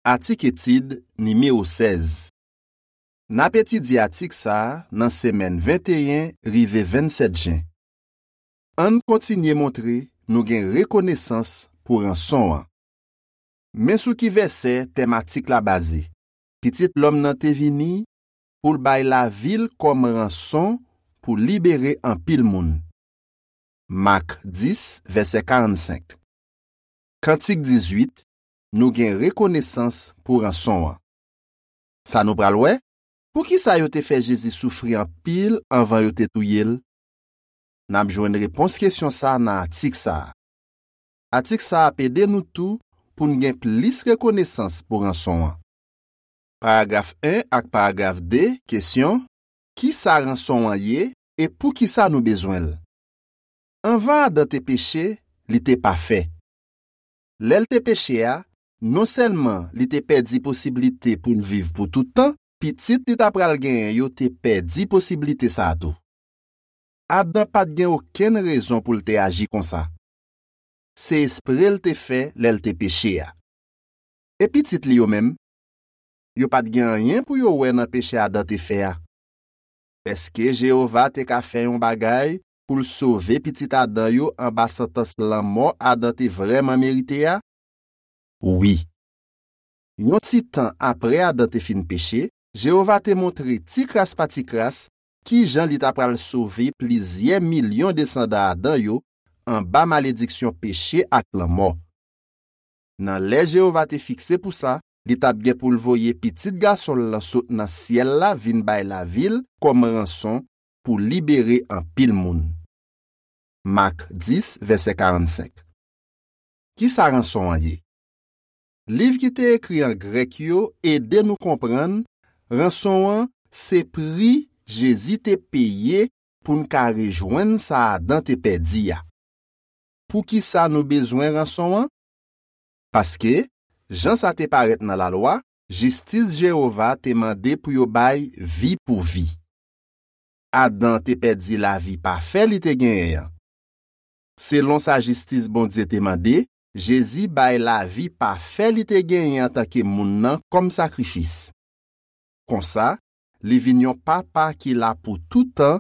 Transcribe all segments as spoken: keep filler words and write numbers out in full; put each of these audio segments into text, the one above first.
Atik etid nimewo sèz. N ap etidye atik sa a nan semèn venteyen rive vennsèt jen. Ann kontinye montre nou gen rekonesans pou ranson an. Men sou ki vèsè tèm atik la baze: Pitit lòm nan te vini pou l bay lavi l kòm ranson pou libere anpil moun. Mak dis, vèsè karannsenk. Kantik dizuit, nou gen rekonesans pou ranson an. Sa nou pral wè, poukisa yo te fè Jezi soufri anpil anvan yo te touye l? N ap jwenn repons kesyon sa a nan atik sa a. Atik sa a ap ede nou tou pou n gen plis rekonesans pou ranson an. Paragraf en ak paragraf de, kesyon: Ki sa ranson an ye e poukisa nou bezwen l? Anvan Adan te peche, li te pafè. Lè l te peche a, non sèlman li te pèdi posiblite pou l viv pou tout tan, pitit li ta pral genyen yo te pèdi posiblite sa a tou. Adan pa t gen okenn rezon pou l te aji konsa. Se espre l te fè lè l te peche a. E pitit li yo menm? Yo pa t gen anyen pou yo wè nan peche Adan te fè a. Èske Jewova te ka fè yon bagay pou l sove pitit Adan yo anba santans lanmò Adan te vrèman merite a? Wi. Yon ti tan apre Adan te fin peche, Jewova te montre ti kras pa ti kras ki jan li ta pral sove plizyè milyon desandan Adan yo anba malediksyon peche ak lanmò. Nan lè Jewova te fikse pou sa, li t ap gen pou l voye Pitit Gason l lan sot nan syèl la vin bay lavi l kòm ranson pou libere anpil moun. Mak dis, vèsè karannsenk. Ki sa ranson an ye? Liv ki te ekri an grèk yo ede nou konprann ranson an se pri Jezi te peye pou n ka rejwenn sa Adan te pèdi a. Poukisa nou bezwen ranson an? Paske, jan sa te parèt nan Lalwa, jistis Jewova te mande pou yo bay vi pou vi. Adan te pèdi lavi pafè li te genyen an. Selon sa jistis Bondye te mande, Jezi bay lavi pafè li te genyen antanke moun nan kòm sakrifis. Konsa, li vin yon papa ki la pou toutan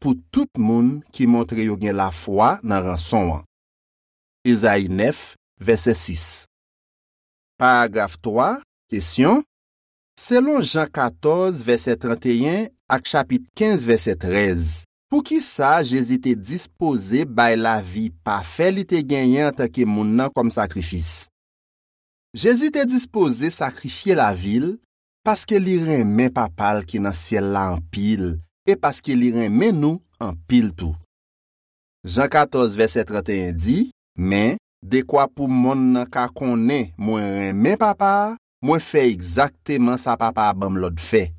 pou tout moun ki montre yo gen lafwa nan ranson an. Ezayi nèf, vèsè sis. Paragraf twa, kesyon: Selon Jan katòz, vèsè tranteyen, ak chapit kenz, vèsè trèz, poukisa Jezi te dispoze bay lavi pafè li te genyen antanke moun nan kòm sakrifis? Jezi te dispoze sakrifye lavi l paske li renmen Papa l ki nan syèl la anpil e paske li renmen nou anpil tou. Jan katòz, vèsè tranteyen di: Men, dekwa pou monn nan ka konnen mwen renmen Papa a, mwen fè egzakteman sa Papa a ban m lòd fè.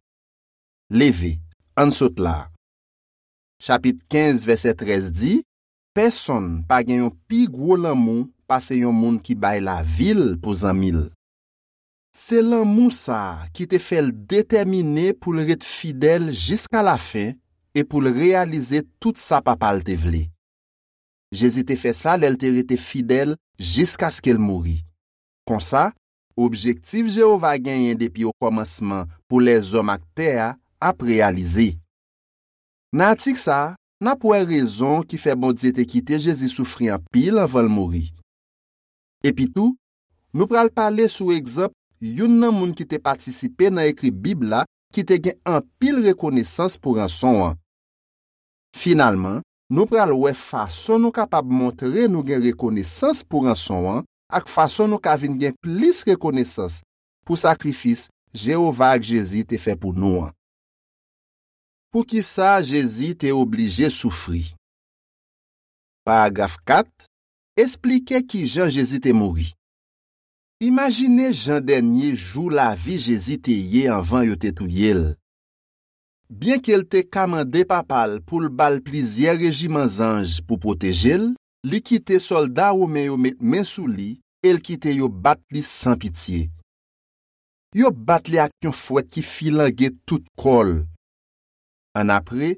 Leve, ann sot la a. Chapit kenz, vèsè trèz di: Pèsonn pa gen yon pi gwo lanmou pase yon moun ki bay lavi l pou zanmi l. Se lanmou sa a ki te fè l detèmine pou l ret fidèl jiskalafen e pou l reyalize tout sa Papa l te vle. Jezi te fè sa lè l te rete fidèl jiskaske l mouri. Konsa, objektif Jewova genyen depi okòmansman pou lèzòm ak tè a ap reyalize. Nan atik sa a, n ap wè rezon ki fè Bondye te kite Jezi soufri anpil anvan l mouri. Epitou, nou pral pale sou egzanp youn nan moun ki te patisipe nan ekri Bib la ki te gen anpil rekonesans pou ranson an. Finalman, nou pral wè fason nou kapab montre nou gen rekonesans pou ranson an ak fason nou ka vin gen plis rekonesans pou sakrifis Jewova ak Jezi te fè pou nou an. Poukisa Jezi te oblije soufri? Paragraf kat, esplike ki jan Jezi te mouri. Imajine jan dènye jou lavi Jezi te ye anvan yo te touye l. Byenke l te ka mande Papa l pou l ba l plizyè rejiman zanj pou pwoteje l, li kite sòlda women yo met men sou li e l kite yo bat li san pitye. Yo bat li ak yon fwèt ki filange tout kò l. Annapre,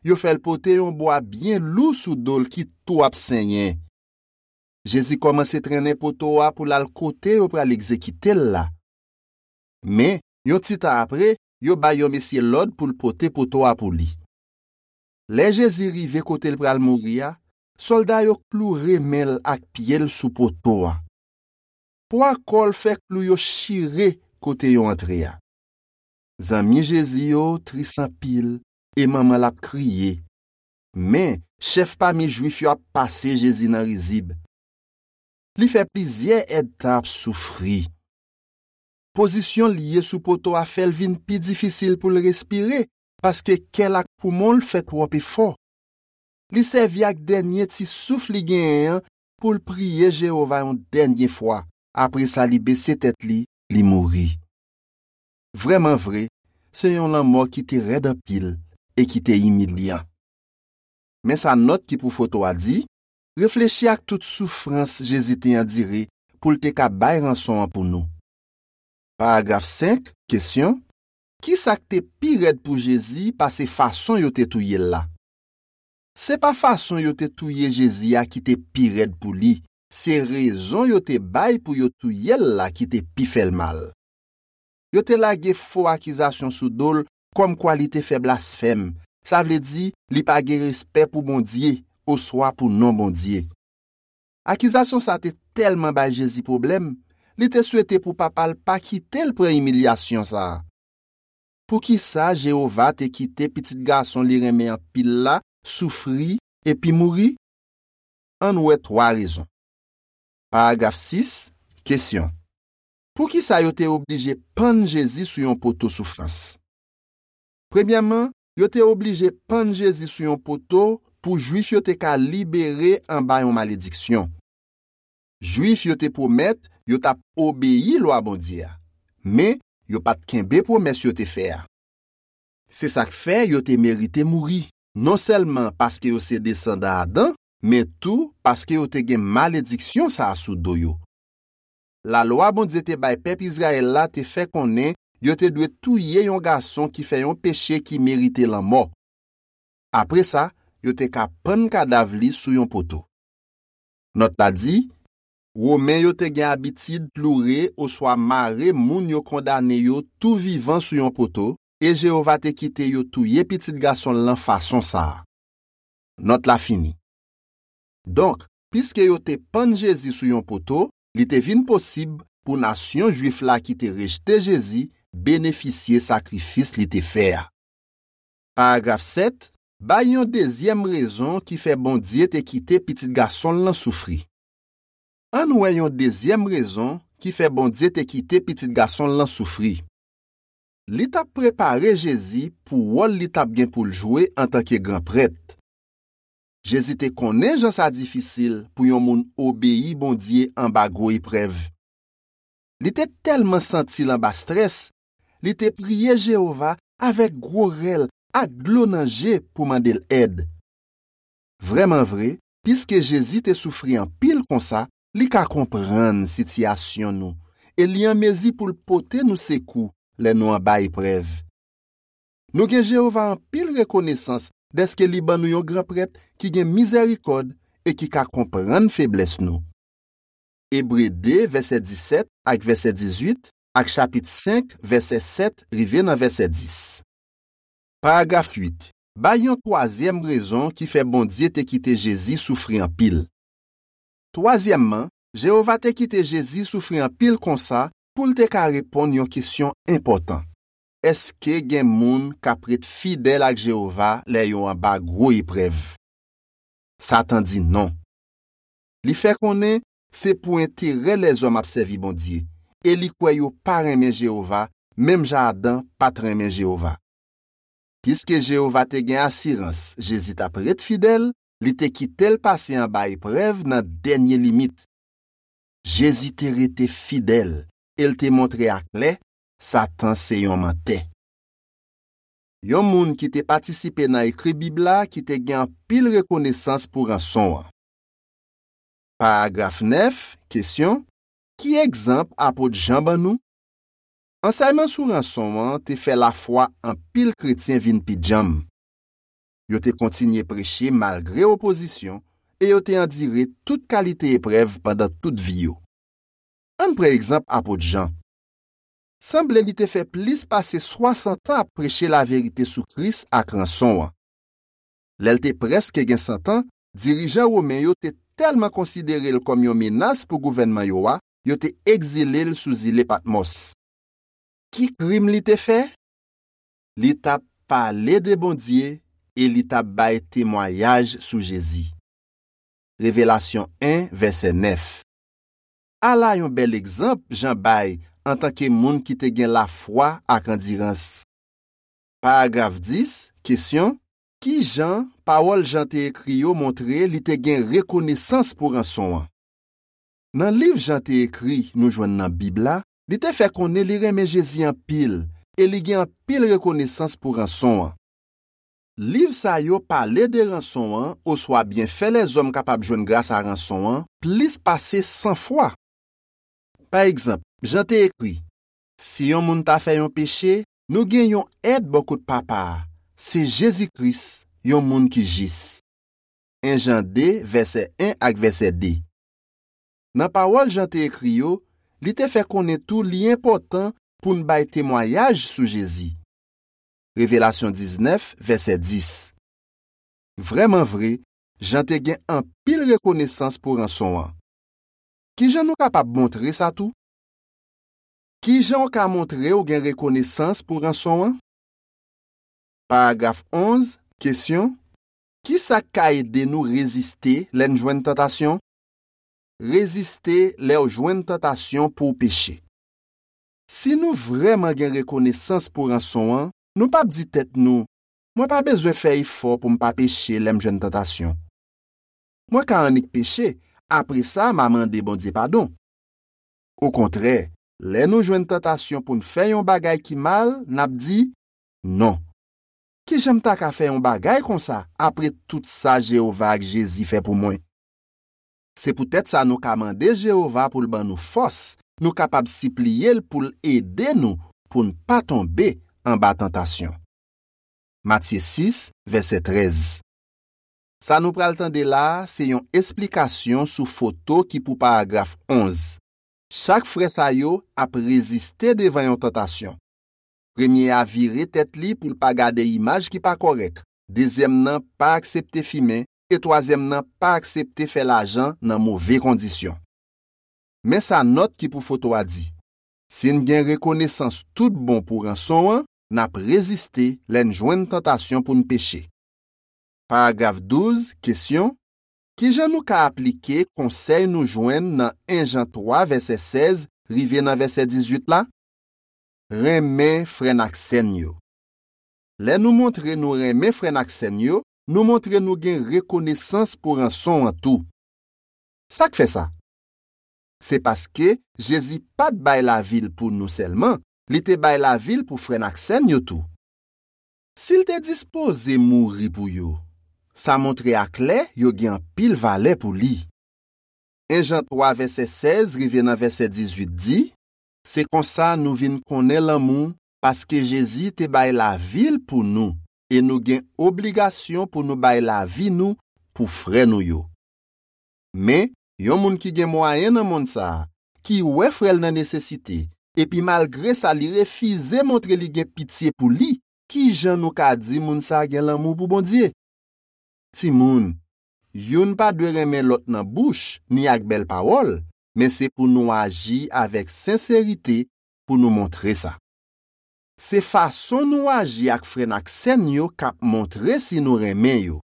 yo fè l pote yon bwa byen lou sou do l ki tou ap senyen. Jezi kòmanse trennen poto a pou l al kote yo pral egzekite l la. Men, yon ti tan apre, yo bay yon mesye lòd pou l pote poto a pou li. Lè Jezi rive kote l pral mouri a, sòlda yo kloure men l ak pye l sou poto a. Pwa kò l fè klou yo chire kote yo antre a. Zanmi Jezi yo tris anpil e manman l ap kriye. Men, chèf pami Jwif yo ap pase Jezi nan rizib. Li fè plizyè èdtan ap soufri. Pozisyon l ye sou poto a fè l vin pi difisil pou l respire, paske kè l ak poumon l fè twòp efò. Li sèvi ak dènye ti souf li genyen an pou l priye Jewova yon dènye fwa. Apre sa, li bese tèt li, li mouri. Vrèman vre, se yon lanmò ki te rèd anpil e ki te imilyan. Men sa nòt ki pou foto a di: reflechi ak tout soufrans Jezi te andire pou l te ka bay ranson an pou nou. Paragraf senk, kesyon: ki sa k te pi rèd pou Jezi pase fason yo te touye l la? Se pa fason yo te touye Jezi a ki te pi rèd pou li, se rezon yo te bay pou yo touye l la ki te pi fè l mal. Yo te lage fo akizasyon sou do l, kòmkwa li te fè blasfèm, sa vle di li pa gen respè pou Bondye oswa pou non Bondye. Akizasyon sa te tèlman bay Jezi pwoblèm, li te swete pou Papa l pa kite l pran imilyasyon sa a. Poukisa Jewova te kite Pitit Gason li renmen anpil la soufri epi mouri? Ann wè twa rezon. Paragraf sis, kesyon: poukisa yo te oblije pann Jezi sou yon poto soufrans? Premyèman, yo te oblije pann Jezi sou yon poto pou Jwif yo te ka libere anba yon malediksyon. Jwif yo te pwomèt yo t ap obeyi lwa Bondye a, men yo pa t kenbe pwomès yo te fè a. Se sa k fè yo te merite mouri, non sèlman paske yo se desandan Adan, men tou paske yo te gen malediksyon sa a sou do yo. Lalwa Bondye te bay pèp Izrayèl la te fè konnen yo te dwe touye yon gason ki fè yon peche ki merite lanmò. Apre sa, yo te ka pann kadav li sou yon poto. Nòt la di: Women yo te gen abitid kloure oswa mare moun yo kondane yo tou vivan sou yon poto, e Jewova te kite yo touye Pitit Gason l lan fason sa a. Nòt la fini. Donk, piske yo te pann Jezi sou yon poto, li te vin posib pou nasyon Jwif la ki te rejte Jezi benefisye sakrifis li te fè a. Paragraf sèt, bay yon dezyèm rezon ki fè Bondye te kite Pitit Gason l lan soufri. Ann wè yon dezyèm rezon ki fè Bondye te kite Pitit Gason l lan soufri. Li t ap prepare Jezi pou wòl li t ap gen pou l jwe antanke gran prèt. Jezi te konnen jan sa difisil pou yon moun obeyi Bondye anba gwo eprèv. Li te tèlman santi l anba strès, li te priye Jewova avèk gwo rèl ak dlo nan je pou mande l èd. Vrèman vre, piske Jezi te soufri anpil konsa, li ka konprann sitiyasyon nou e li an mezi pou l pote nou sekou lè nou anba eprèv. Nou gen Jewova anpil rekonesans dèske li ban nou yon gran prèt ki gen mizèrikòd e ki ka konprann feblès nou. Ebre de, vèsè disèt ak vèsè dizuit, ak chapit senk, vèsè sèt rive nan vèsè dis. Paragraf uit, bay yon twazyèm rezon ki fè Bondye te kite Jezi soufri anpil. Twazyèmman, Jewova te kite Jezi soufri anpil konsa pou l te ka reponn yon kesyon enpòtan: èske gen moun k ap ret fidèl ak Jewova lè yo anba gwo eprèv? Satan di non. Li fè konnen se pou enterè lèzòm ap sèvi Bondye, e li kwè yo pa renmen Jewova, menm jan Adan pa t renmen Jewova. Piske Jewova te gen asirans Jezi t ap ret fidèl, li te kite l pase anba eprèv nan dènye limit. Jezi te rete fidèl e l te montre aklè Satan se yon mantè. Yon moun ki te patisipe nan ekri Bib la ki te gen anpil rekonesans pou ranson an. Paragraf nèf, kesyon: ki egzanp apot Jan ban nou? Ansèyman sou ranson an te fè lafwa anpil kretyen vin pi djanm. Yo te kontinye preche malgre opozisyon e yo te andire tout kalite eprèv pandan tout vi yo. Ann pran egzanp apot Jan. sanble li te fè plis pase swasant an ap preche laverite sou Kris ak ranson an. Lè l te prèske gen san tan, dirijan women yo te tèlman konsidere l kòm yon menas pou gouvènman yo a, yo te egzile l sou zile Patmòs. Ki krim li te fè? Li t ap pale de Bondye e li t ap bay temwayaj sou Jezi. Revelasyon en, vèsè nèf. Ala yon bèl egzanp Jan bay antanke moun ki te gen lafwa ak andirans. Paragraf dis, kesyon, ki jan pawòl Jan te ekri yo montre li te gen rekonesans pou ranson an? Nan liv Jan te ekri nou jwenn nan Bib la, li te fè konnen li renmen Jezi anpil e li gen anpil rekonesans pou ranson an. Liv sa yo pale de ranson an oswa byenfè lèzòm kapab jwenn grasa ranson an plis pase san fwa. Pa egzanp, Jan te ekri, si yon moun ta fè yon peche, nou gen yon èd bò kot Papa a, se Jezi Kris, yon moun ki jis. En Jan de, vèsè en ak vèsè de. Nan pawòl Jan te ekri yo, li te fè konnen tou li enpòtan pou n bay temwayaj sou Jezi. Revelasyon diznèf, vèsè dis. Vrèman vre, Jan te gen anpil rekonesans pou ranson an. Ki jan nou kapab montre sa tou? Ki jan w ka montre w gen rekonesans pou ranson an? Paragraf onz, kesyon, ki sa k ka ede nou reziste lè n jwenn tantasyon? Reziste lè w jwenn tantasyon pou w peche. Si nou vrèman gen rekonesans pou ranson an, nou p ap di tèt nou, mwen pa bezwen fè efò pou m pa peche lè m jwenn tantasyon. Mwen ka annik peche, apre sa m a mande Bondye padon. Okontrè, lè nou jwenn tantasyon pou n fè yon bagay ki mal, n ap di, non. Ki jan m ta ka fè yon bagay konsa apre tout sa Jewova ak Jezi fè pou mwen? Se poutèt sa nou ka mande Jewova pou l ban nou fòs, nou kapab sipliye l pou l ede nou pou n pa tonbe anba tantasyon. Matye sis, vèsè trèz. Sa nou pral tande la a se yon esplikasyon sou foto ki pou paragraf onz. Chak frè sa yo ap reziste devan yon tantasyon. Premye a vire tèt li pou l pa gade imaj ki pa kòrèk, dezyèm nan pa aksepte fimen, e twazyèm nan pa aksepte fè lajan nan move kondisyon. Men sa nòt ki pou foto a di, si n gen rekonesans tout bon pou ranson an, n ap reziste lè n jwenn tantasyon pou n peche. Paragraf douz, kesyon, ki jan nou ka aplike konsèy nou jwenn nan en Jan twa, vèsè sèz rive nan vèsè dizuit la? Renmen frè n ak sè n yo. Lè nou montre nou renmen frè n ak sè n yo, nou montre nou gen rekonesans pou ranson an tou. Sa k fè sa? Se paske Jezi pa t bay lavi l pou nou sèlman, li te bay lavi l pou frè n ak sè n yo tou. Si l te dispoze mouri pou yo, sa montre aklè yo gen anpil valè pou li. En Jan twa, vèsè sèz rive nan vèsè dizuit di, se konsa nou vin konnen lanmou, paske Jezi te bay lavi l pou nou, e nou gen obligasyon pou nou bay lavi nou pou frè nou yo. Men, yon moun ki gen mwayen nan monn sa a, ki wè frè l nan nesesite, epi malgre sa li refize montre li gen pitye pou li, ki jan nou ka di moun sa a gen lanmou pou Bondye? Timoun, youn pa dwe renmen lòt nan bouch ni ak bèl pawòl, men se pou nou aji avèk senserite pou nou montre sa. Se fason nou aji ak frè n ak sè n yo k ap montre si nou renmen yo.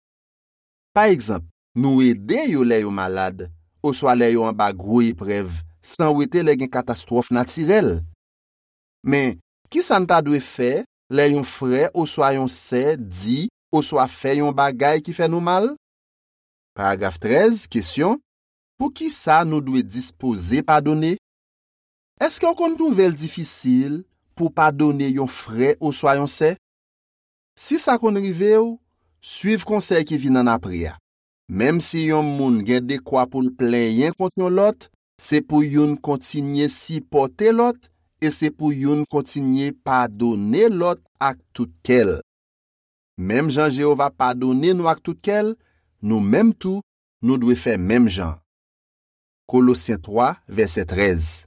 Pa egzanp, nou ede yo lè yo malad, oswa lè yo anba gwo eprèv, san wete lè gen katastwòf natirèl. Men, ki sa n ta dwe fè lè yon frè oswa yon sè di oswa fè yon bagay ki fè nou mal? Paragraf trèz, kesyon, poukisa nou dwe dispoze padone? Èske w konn twouve l difisil pou w padone yon frè oswa yon sè? Si sa konn rive w, suiv konsèy ki vin annapre a. Menm si yon moun gen dekwa pou l plenyen kont yon lòt, se pou youn kontinye sipòte lòt e se pou youn kontinye padone lòt ak tout kè l. Menm jan Jewova padone nou ak tout kè l, nou menm tou, nou dwe fè menm jan. Kolosyen twa, vèsè trèz.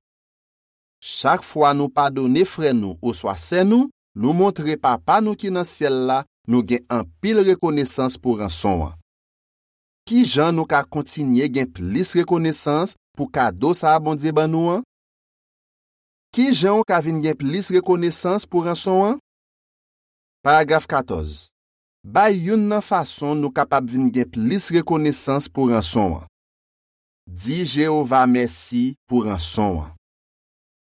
Chak fwa nou padone frè nou oswa sè nou, nou montre Papa nou ki nan syèl la nou gen anpil rekonesans pou ranson an. Ki jan nou ka kontinye gen plis rekonesans pou kado sa a Bondye ban nou an? Ki jan w ka vin gen plis rekonesans pou ranson an? Paragraf katòz. Bay youn nan fason nou kapab vin gen plis rekonesans pou ranson an. Di Jewova mèsi pou ranson an.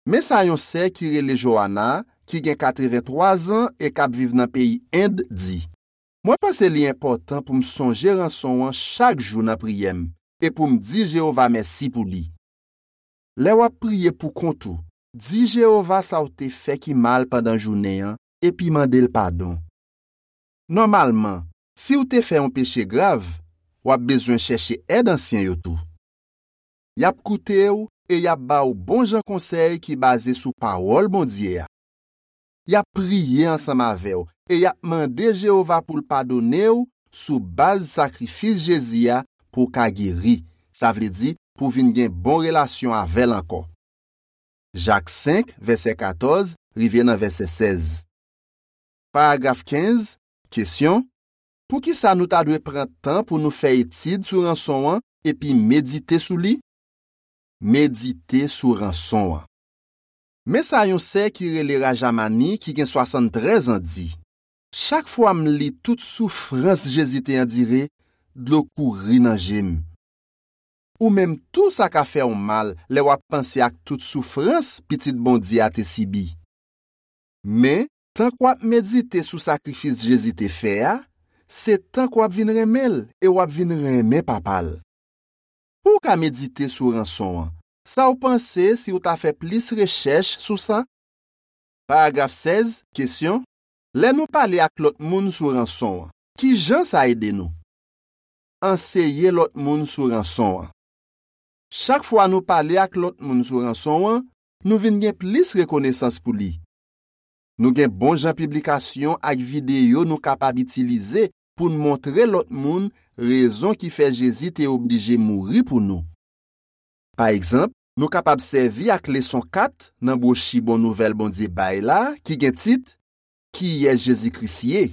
Men sa yon sè ki rele Joanna, ki gen katrevenntwa zan e k ap viv nan peyi End, di: Mwen panse li enpòtan pou m sonje ranson an chak jou nan priyè m e pou m di Jewova mèsi pou li. Lè w ap priye poukont ou, di Jewova sa w te fè ki mal pandan jounen an epi mande l padon. Nòmalman, si w te fè yon peche grav, w ap bezwen chèche èd ansyen yo tou. Y ap koute w e y ap ba w bon jan konsèy ki baze sou Pawòl Bondye a. Y ap priye ansanm avè w e y ap mande Jewova pou l padone w sou baz sakrifis Jezi a pou w ka geri, sa vle di pou w vin gen bon relasyon avè l ankò. Jak senk, vèsè katòz rive nan vèsè sèz. Paragraf kenz, kesyon: Poukisa nou ta dwe pran tan pou nou fè etid sou ranson an epi medite sou li? Medite sou ranson an. Men sa yon sè ki rele Rajamani, ki gen swasanntrèz an, di: Chak fwa m li tout soufrans Jezi te andire, dlo kouri nan je m. Ou menm tou sa ka fè w mal lè w ap panse ak tout soufrans Pitit Bondye a te sibi. Men, tank w ap medite sou sakrifis Jezi te fè a, se tank w ap vin renmen l e w ap vin renmen Papa l. Pou w ka medite sou ranson an, sa w panse si w ta fè plis rechèch sou sa? Paragraf sèz, kesyon: Lè nou pale ak lòt moun sou ranson an, ki jan sa ede nou? Anseye lòt moun sou ranson an. Chak fwa nou pale ak lòt moun sou ranson an, nou vin gen plis rekonesans pou li. Nou gen bon jan piblikasyon ak videyo nou kapab itilize pou n montre lòt moun rezon ki fè Jezi te oblije mouri pou nou. Pa egzanp, nou kapab sèvi ak leson kat nan bwochi Bon Nouvèl Bondye bay la, ki gen tit Kiyès Jezi Kris ye?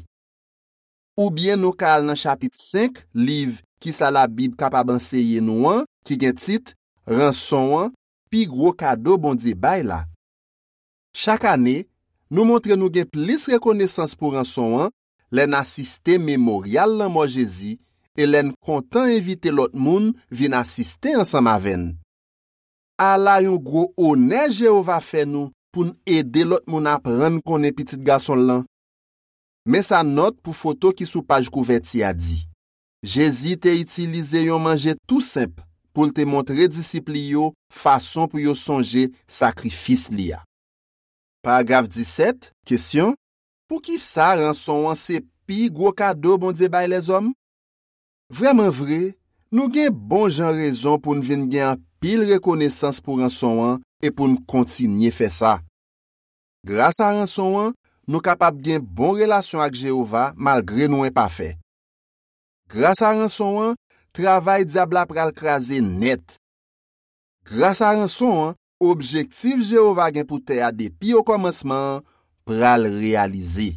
Oubyen nou ka al nan chapit senk liv Kisa Labib kapab anseye nou an, ki gen tit Ranson an, pi gwo kado Bondye bay la. Chak ane, nou montre nou gen plis rekonesans pou ranson an lè n asiste Memoryal Lanmò Jezi e lè n kontan envite lòt moun vin asiste ansanm avè n. Ala yon gwo onè Jewova fè nou pou n ede lòt moun aprann konnen Pitit Gason l lan! Men sa nòt pou foto ki sou paj kouvèti a di: Jezi te itilize yon manje tou senp pou l te montre disip li yo fason pou yo sonje sakrifis li a. Paragraf disèt, kesyon: Poukisa ranson an se pi gwo kado Bondye bay lèzòm? Vrèman vre, nou gen bon jan rezon pou n vin gen anpil rekonesans pou ranson an e pou n kontinye fè sa. Gras a ranson an, nou kapab gen bon relasyon ak Jewova malgre nou enpafè. Gras a ranson an, travay dyab la pral kraze nèt. Gras a ranson an, objektif Jewova gen pou tè a depi okòmansman an pral reyalize.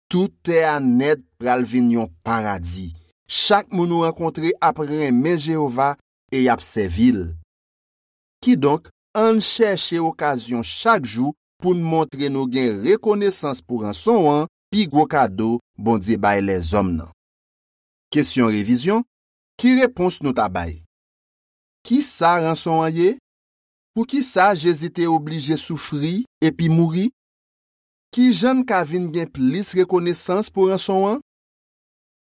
Tout tè a nèt pral vin yon paradi. Chak moun ou rankontre ap renmen Jewova e y ap sèvi l. Kidonk, ann chèche okazyon chak jou pou n montre nou gen rekonesans pou ranson an, pi gwo kado Bondye bay lèzòm nan. Kesyon revizyon: Ki repons nou ta bay? Ki sa ranson an ye? Poukisa Jezi te oblije soufri epi mouri? Ki jan n ka vin gen plis rekonesans pou ranson an?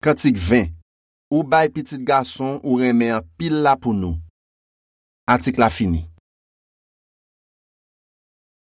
Kantik ven: Ou bay Pitit Gason ou renmen anpil la pou nou. Atik la fini.